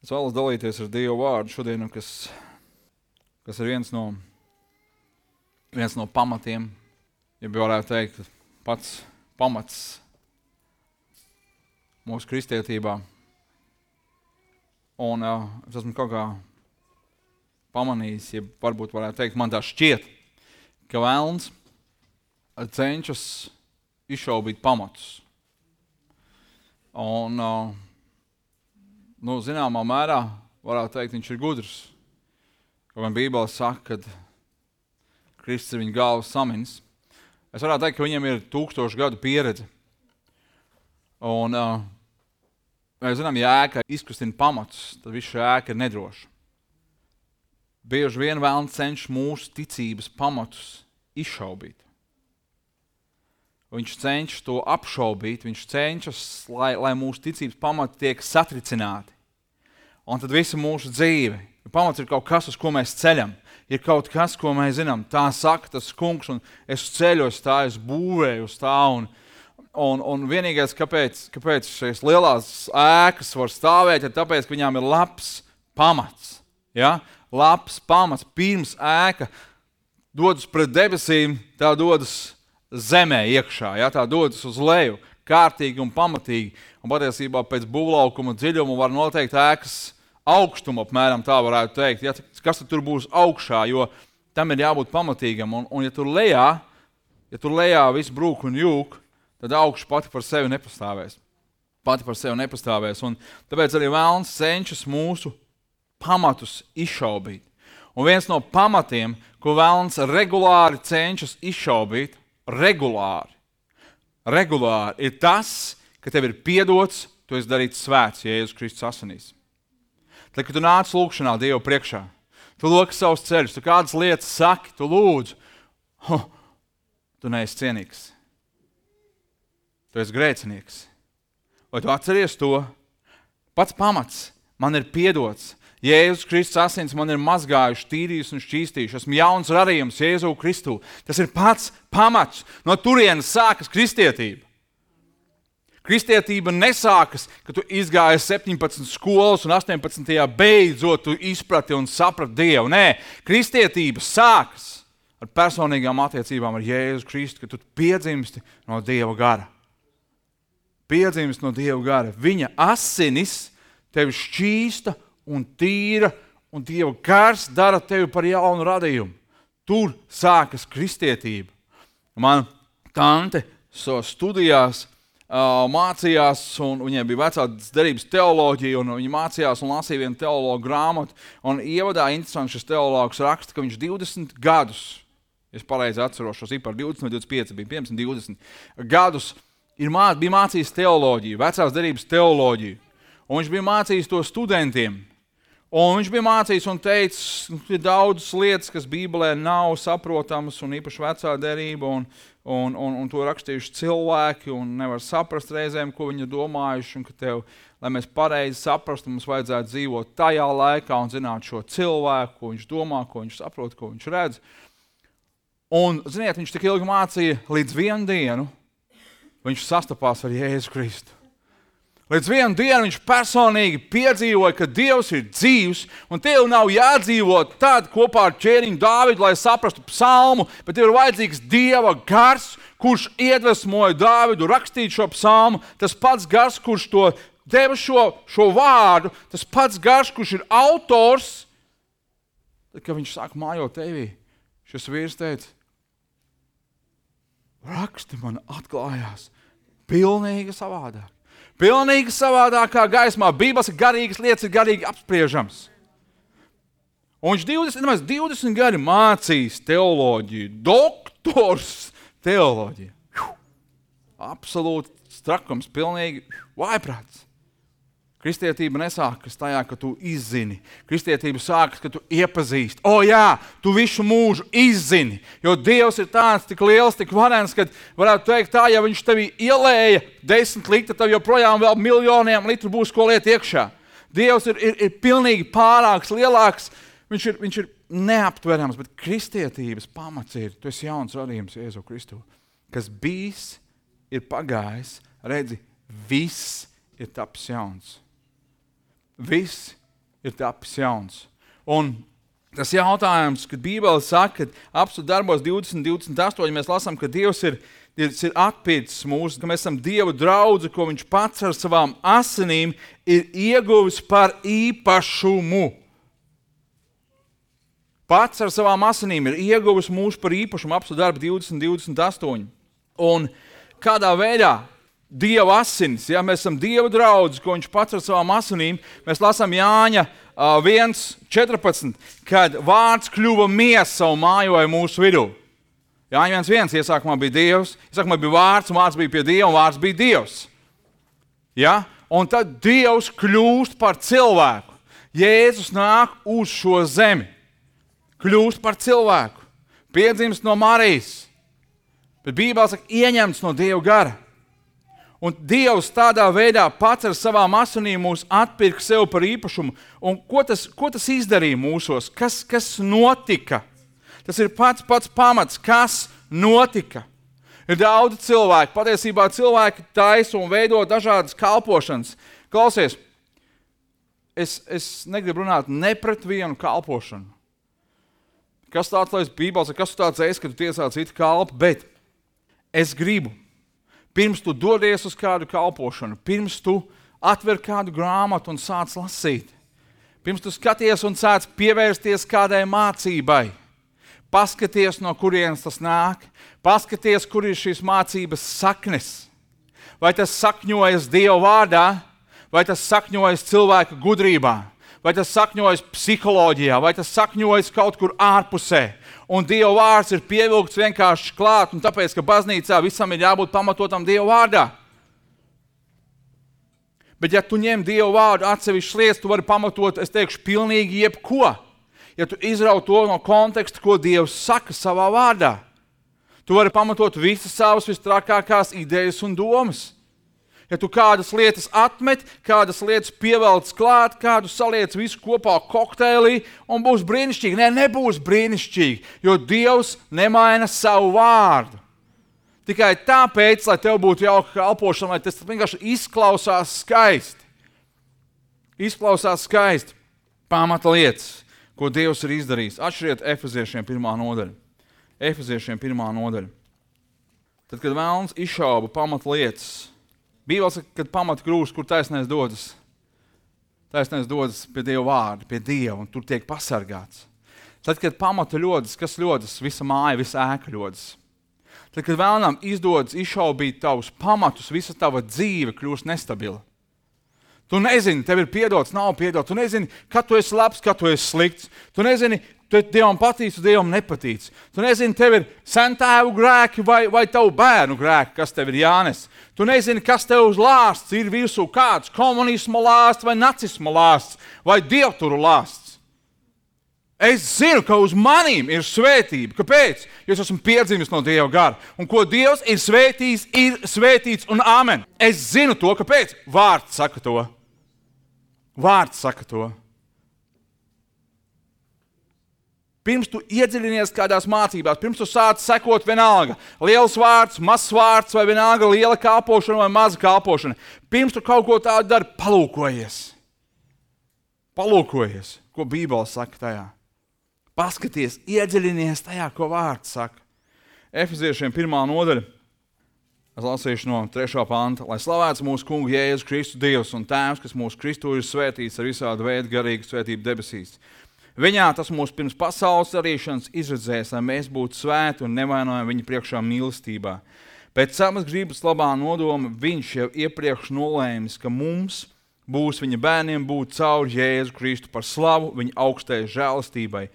Es vēlos dalīties ar Dievu vārdu šodien, kas ir viens no pamatiem, ja varētu teikt, pats pamats mūsu kristietībā. Un es esmu kaut kā pamanījis, ja varbūt varētu teikt, man tā šķiet, ka velns cenšas izšaubīt pamatus. Un, zināmā mērā, varētu teikt, viņš ir gudrs. Kaut gan Bībele saka, ka Kristus ir viņa galvas saminis. Es varētu teikt, ka viņam ir 1000 gadu pieredze. Un, mēs zinām, ja ēka izkustina pamatus, tad viss šī ēka ir nedroša. Bieži vien velns cenšas mūsu ticības pamatus izšaubīt. Viņš cenšas to apšaubīt, viņš cenšas, lai mūsu ticības pamati tiek satricināti. Un tad visa mūsu dzīve, pamats ir kaut kas, uz ko mēs ceļam, ir kaut kas, ko mēs zinām. Tā saka tas kungs, un es ceļu uz tā, es būvēju uz tā. Un vienīgais, kāpēc šīs lielās ēkas var stāvēt, ir tāpēc, ka viņām ir labs pamats. Ja? Labs pamats. Pirms ēka dodas pret debesīm, tā dodas zemē iekšā, ja? Tā dodas uz leju, kārtīgi un pamatīgi. Un patiesībā pēc būvlaukuma dziļuma var noteikt ēkas augstumu, apmēram tā varētu teikt. Ja? Kas tad tur būs augšā, jo tam ir jābūt pamatīgam. Un ja tur lejā viss brūk un jūk, tad augšu pati par sevi nepastāvēs. Un tāpēc arī velns cenšas mūsu pamatus izšaubīt. Un viens no pamatiem, ko velns regulāri cenšas izšaubīt, regulāri, ir tas, ka tev ir piedots, tu esi darīts svēts Jēzus Kristus asinīs. Tad, kad tu nāc lūgšanā Dievu priekšā, tu loki savus ceļus, tu kādas lietas saki, tu lūdzu, tu neesi cienīgs. Tu esi grēcinieks. Vai tu atceries to? Pats pamats man ir piedots. Jēzus Kristus asins man ir mazgājuši, tīrījuši un šķīstījuši. Esmu jauns radījums Jēzu Kristu. Tas ir pats pamats. No turienes sākas kristietība. Kristietība nesākas, ka tu izgāji 17 skolas un 18. beidzot tu izprati un saprati Dievu. Nē, kristietība sākas ar personīgām attiecībām ar Jēzu Kristu, ka tu piedzimsti no Dieva gara. Viņa asinis tevi šķīsta un tīra, un Dieva gars dara tevi par jaunu radījumu. Tur sākas kristietība. Man tante studijās mācījās, un viņai bija vecās derības teoloģija, un viņa mācījās un lasīja vienu teologu grāmatu, un ievadā interesanti šis teologs raksta, ka viņš 20 gadus, es pareizi atceros šos par 20 vai 25, bija 20 gadus, bija mācījis teoloģiju, vecās derības teoloģiju, un viņš bija mācījis to studentiem. Un viņš bija mācījis un teicis, ir daudzas lietas, kas Bībelē nav saprotamas, un īpaši vecā derība, un to rakstījuši cilvēki, un nevar saprast reizēm, ko viņi domājuši, un ka tev, lai mēs pareizi saprastu, mums vajadzētu dzīvot tajā laikā un zināt šo cilvēku, ko viņš domā, ko viņš saprot, ko viņš redz. Un, ziniet, viņš tik ilgi mācīja līdz vienu dienu, viņš sastapās ar Jēzu Kristu. Līdz vienu dienu viņš personīgi piedzīvoja, ka Dievs ir dzīvs, un tev nav jādzīvot tad kopā ar ķēniņu Dāvidu, lai saprastu psalmu, bet tev ir vajadzīgs Dieva gars, kurš iedvesmoja Dāvidu rakstīt šo psalmu, tas pats gars, kurš to deva šo vārdu, tas pats gars, kurš ir autors. Tad, kad viņš sāk mājot tevī, šis vīrs teica, raksti man atklājās pilnīgi savādāk. Pilnīgi savādākā gaismā. Bībeles garīgas lietas ir garīgi apspriežams. Un viņš 20 gadi mācījis teoloģiju, doktors teoloģiju. Absolūti strakums, pilnīgi vājprāts. Kristietība nesākas tajā, ka tu izzini. Kristietība sākas, ka tu iepazīsti. Jā, tu visu mūžu izzini, jo Dievs ir tāds tik liels, tik varens, ka varētu teikt tā, ja viņš tevi ielēja 10 litru, tad joprojām vēl miljoniem litru būs ko liet iekšā. Dievs ir pilnīgi pārāks, lielāks, viņš ir neaptverams, bet kristietības pamats ir, tu esi jauns radījums Jēzu Kristu, kas bijis, ir pagājis, redzi, viss ir taps jauns. Viss ir tapis jauns. Un tas jautājums, kad Bībele saka, ka apstudēt darbos 20:28 mēs lasām, ka Dievs ir atpircis mūs, ka mēs esam Dieva draudzi, ko viņš pats ar savām asinīm ir ieguvis par īpašumu. Pats ar savām asinīm ir ieguvis mūs par īpašumu, apstudēt darbu 20:28. Un kādā veidā Dieva asinis, ja mēs esam Dieva draudzi, ko viņš pats ar savām asinīm, mēs lasām Jāņa 1:14, kad vārds kļuva miesa un mājoja mūsu vidū. Jāņa 1:1, iesākumā bija Dievs, iesākumā bija vārds, un vārds bija pie Dieva, un vārds bija Dievs. Ja? Un tad Dievs kļūst par cilvēku. Jēzus nāk uz šo zemi. Kļūst par cilvēku. Piedzimst no Marijas. Bet Bībelē saka, ieņemts no Dieva gara. Un Dievs tādā veidā pats ar savām asinīm mūs atpirka sev par īpašumu. Un ko tas izdarīja mūsos? Kas notika? Tas ir pats pamats, kas notika. Ir daudz cilvēku, patiesībā cilvēki taisa un veido dažādas kalpošanas. Klausies, es negribu runāt ne pret vienu kalpošanu. Kas tāds, lai Bībelē, kas tāds esi, ka tu tiesā citu kalpu, bet es gribu, pirms tu dodies uz kādu kalpošanu, pirms tu atver kādu grāmatu un sāc lasīt, pirms tu skaties un sāc pievērsties kādai mācībai, paskaties, no kurienes tas nāk, paskaties, kur ir šīs mācības saknes. Vai tas sakņojas Dieva vārdā, vai tas sakņojas cilvēka gudrībā, vai tas sakņojas psiholoģijā, vai tas sakņojas kaut kur ārpusē. Un Dieva vārds ir pievilkts vienkārši klāt, un tāpēc, ka baznīcā visam ir jābūt pamatotam Dieva vārdā. Bet ja tu ņem Dieva vārdu atsevišķas lietas, tu vari pamatot, es teikšu, pilnīgi jebko. Ja tu izrauj to no konteksta, ko Dievs saka savā vārdā, tu vari pamatot visas savas vistrakākās idejas un domas. Ja tu kādas lietas atmet, kādas lietas pievelc klāt, kādu saliec visu kopā kokteilī un būs brīnišķīgi. Nebūs brīnišķīgi, jo Dievs nemaina savu vārdu. Tikai tāpēc, lai tev būtu jauka kalpošana, lai tas vienkārši izklausās skaisti. Izklausās skaisti pamata lietas, ko Dievs ir izdarījis. Atšķiriet Efeziešiem 1. nodaļa. Efeziešiem 1. nodaļa. Tad, kad vēlns izšauba pamata lietas, Bībelē saka, kad pamata krūst, kur taisnais dodas. Taisnais dodas pie Dieva vārda, pie Dieva, un tur tiek pasargāts. Tad, kad pamata ļodas, kas ļodas? Visa māja, visa ēka ļodas. Tad, kad vēlnam izdodas izšaubīt tavus pamatus, visa tava dzīve kļūst nestabila. Tu nezini, tev ir piedots, nav piedots. Tu nezini, kad tu esi labs, kad tu esi slikts. Tu nezini, Dievam patīc, Dievam nepatīc. Tu nezini, tev ir sentēvu grēki vai tavu bērnu grēki, kas tev ir jānes. Tu nezini, kas tev uz lāsts ir virsū, kāds komunisma lāsts vai nacisma lāsts vai dievturu lāsts. Es zinu, ka uz manīm ir svētība. Kāpēc? Jo es esmu piedzimis no Dieva gara. Un ko Dievs ir svētījis, ir svētīts un amen. Es zinu to, kāpēc? Vārds saka to. Vārds saka to. Pirms tu iedziļinies kādās mācībās, pirms tu sāc sekot vienalga, liels vārds, mazs vārds, vai vienalga liela kalpošana vai maza kalpošana, pirms tu kaut ko tādu dari, palūkojies. Palūkojies, ko Bībele saka tajā. Paskaties, iedziļinies tajā, ko vārds saka. Efeziešiem 1. nodaļa, es lasīšu no 3. panta, lai slavēts mūsu kungu Jēzus Kristu Dievs un Tēvs, kas mūsu Kristu ir svētīts ar visādu veidu garīgu svētību debesīs. Viņā tas mūs pirms pasaules radīšanas izredzēs, lai mēs būtu svēti un nevainojami viņa priekšā mīlestībā. Pēc savas gribas labā nodoma viņš jau iepriekš nolēmis, ka mums būs viņa bērniem būt caur Jēzu Kristu par slavu viņa augstajai žēlastībai,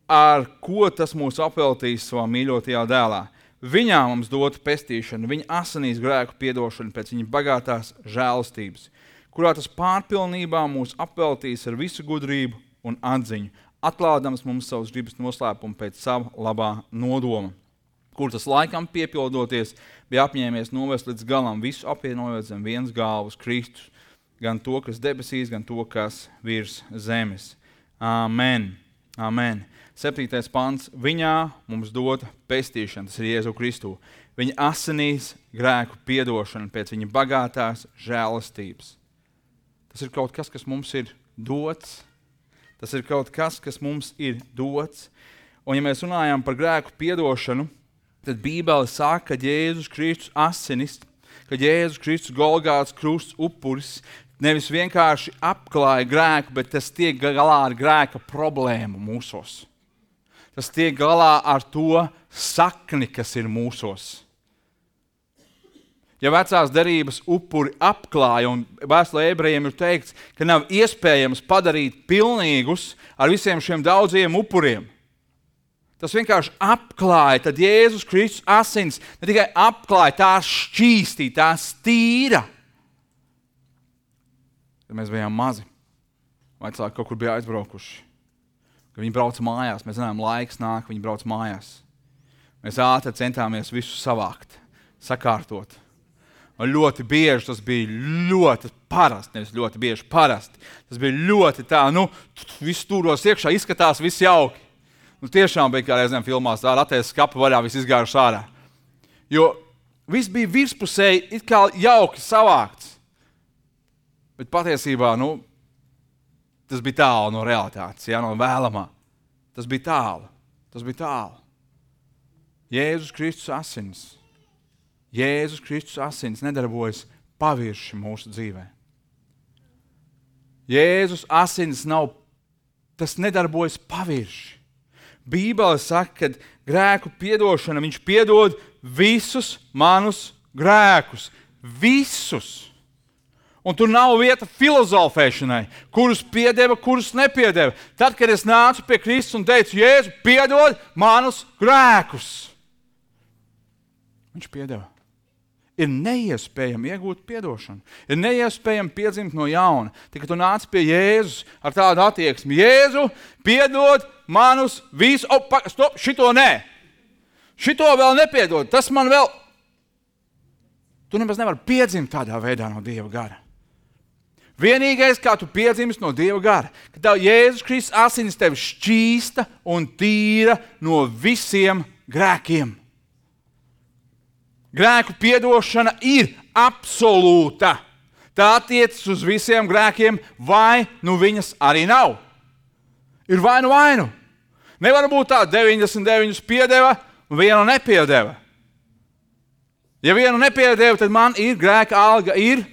ar ko tas mūs apveltīs savā mīļotajā dēlā. Viņā mums dota pestīšana, viņa asinīs grēku piedošana pēc viņa bagātās žēlastības, kurā tas pārpilnībā mūs apveltīs ar visu gudrību un atziņu, atklādams mums savus gribas noslēpumu pēc sava labā nodoma, kur tas laikam piepildoties bija apņēmies novest līdz galam, visu apvienojot zem vienas galvas Kristus, gan to, kas debesīs, gan to, kas virs zemes. Amen. Amen. 7. pants. Viņā mums dota pestīšana, tas ir Jēzu Kristu. Viņa asinīs grēku piedošana pēc viņa bagātās žēlastības. Tas ir kaut kas, kas mums ir dots. Tas ir kaut kas, kas mums ir dots. Un ja mēs runājam par grēku piedošanu, tad Bībele saka, ka Jēzus Kristus asinis, ka Jēzus Kristus Golgātas krusts upuris nevis vienkārši apklāja grēku, bet tas tiek galā ar grēka problēmu mūsos. Tas tiek galā ar to sakni, kas ir mūsos. Ja vecās derības upuri apklāja, un vēstulē ebrejiem ir teikts, ka nav iespējams padarīt pilnīgus ar visiem šiem daudziem upuriem. Tas vienkārši apklāja, tad Jēzus Kristus asins ne tikai apklāja, tās šķīstīja, tās tīra. Kad mēs bijām mazi, vecāki kaut kur bija aizbraukuši. Kad viņi brauca mājās, mēs zinām, laiks nāk, viņi brauca mājās. Mēs ātri centāmies visu savākt, sakārtot. Un ļoti bieži tas bija ļoti parasti, nevis ļoti bieži parasti. Tas bija ļoti tā, viss stūros iekšā, izskatās viss jauki. Tiešām bija kā reizēm filmās, tā ratēs skapa vaļā, viss izgājuši ārā. Jo viss bija virspusēji, it kā jauki savākts. Bet patiesībā, tas bija tālu no realitātes, no vēlamā. Tas bija tālu. Jēzus Kristus asins. Jēzus Kristus asins nedarbojas pavirši mūsu dzīvē. Jēzus asins tas nedarbojas pavirši. Bībele saka, ka grēku piedošana, viņš piedod visus manus grēkus. Visus. Un tur nav vieta filozofēšanai, kurus piedeva, kurus nepiedeva. Tad, kad es nācu pie Kristus un teicu, Jēzu, piedod manus grēkus. Viņš piedeva. Ir neiespējami iegūt piedošanu. Ir neiespējami piedzimt no jauna. Tikai tu nāc pie Jēzus ar tādu attieksmi. Jēzu, piedod manus visus. Stop, šito nē. Šito vēl nepiedod. Tas man vēl... Tu nemaz nevari piedzimt tādā veidā no Dieva gara. Vienīgais, kā tu piedzimst no Dieva gara, ka tev Jēzus Kristus asinis tevi šķīsta un tīra no visiem grēkiem. Grēku piedošana ir absolūta. Tā attiecas uz visiem grēkiem, vai viņas arī nav. Ir vai nu. Nevar būt tā, 99 piedeva un vienu nepiedeva. Ja vienu nepiedeva, tad man ir grēka alga, ir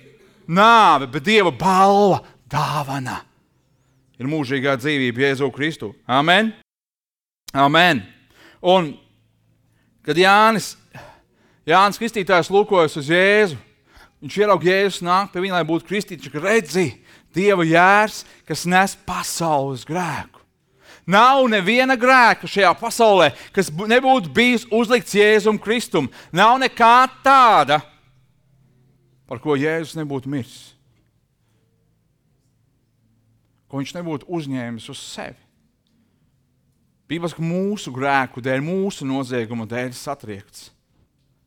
nāve, bet Dieva balva, dāvana. Ir mūžīgā dzīvība Jēzu Kristu. Amen. Amen. Un, kad Jānis Kristītājs lūkojas uz Jēzu, viņš ieraug Jēzus nāk pie viņa, lai būtu kristīts, ka redzi Dieva jērs, kas nes pasaules grēku. Nav neviena grēka šajā pasaulē, kas nebūtu bijis uzlikts Jēzum Kristum. Nav nekā tāda, par ko Jēzus nebūtu miris. Ko viņš nebūtu uzņēmis uz sevi. Bībels, ka mūsu grēku dēļ, mūsu nozieguma dēļ satriekts.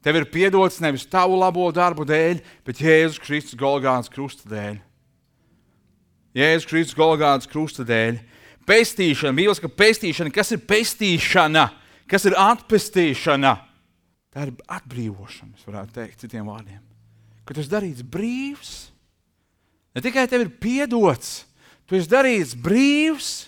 Tev ir piedots nevis tavu labo darbu dēļ, bet Jēzus Kristus Golgātas krusta dēļ. Jēzus Kristus Golgātas krusta dēļ. Pestīšana, Bībels, ka pestīšana, kas ir pestīšana? Kas ir atpestīšana? Tā ir atbrīvošana, es varētu teikt citiem vārdiem. Ka tu esi darīts brīvs. Ne tikai tev ir piedots, tu esi darīts brīvs.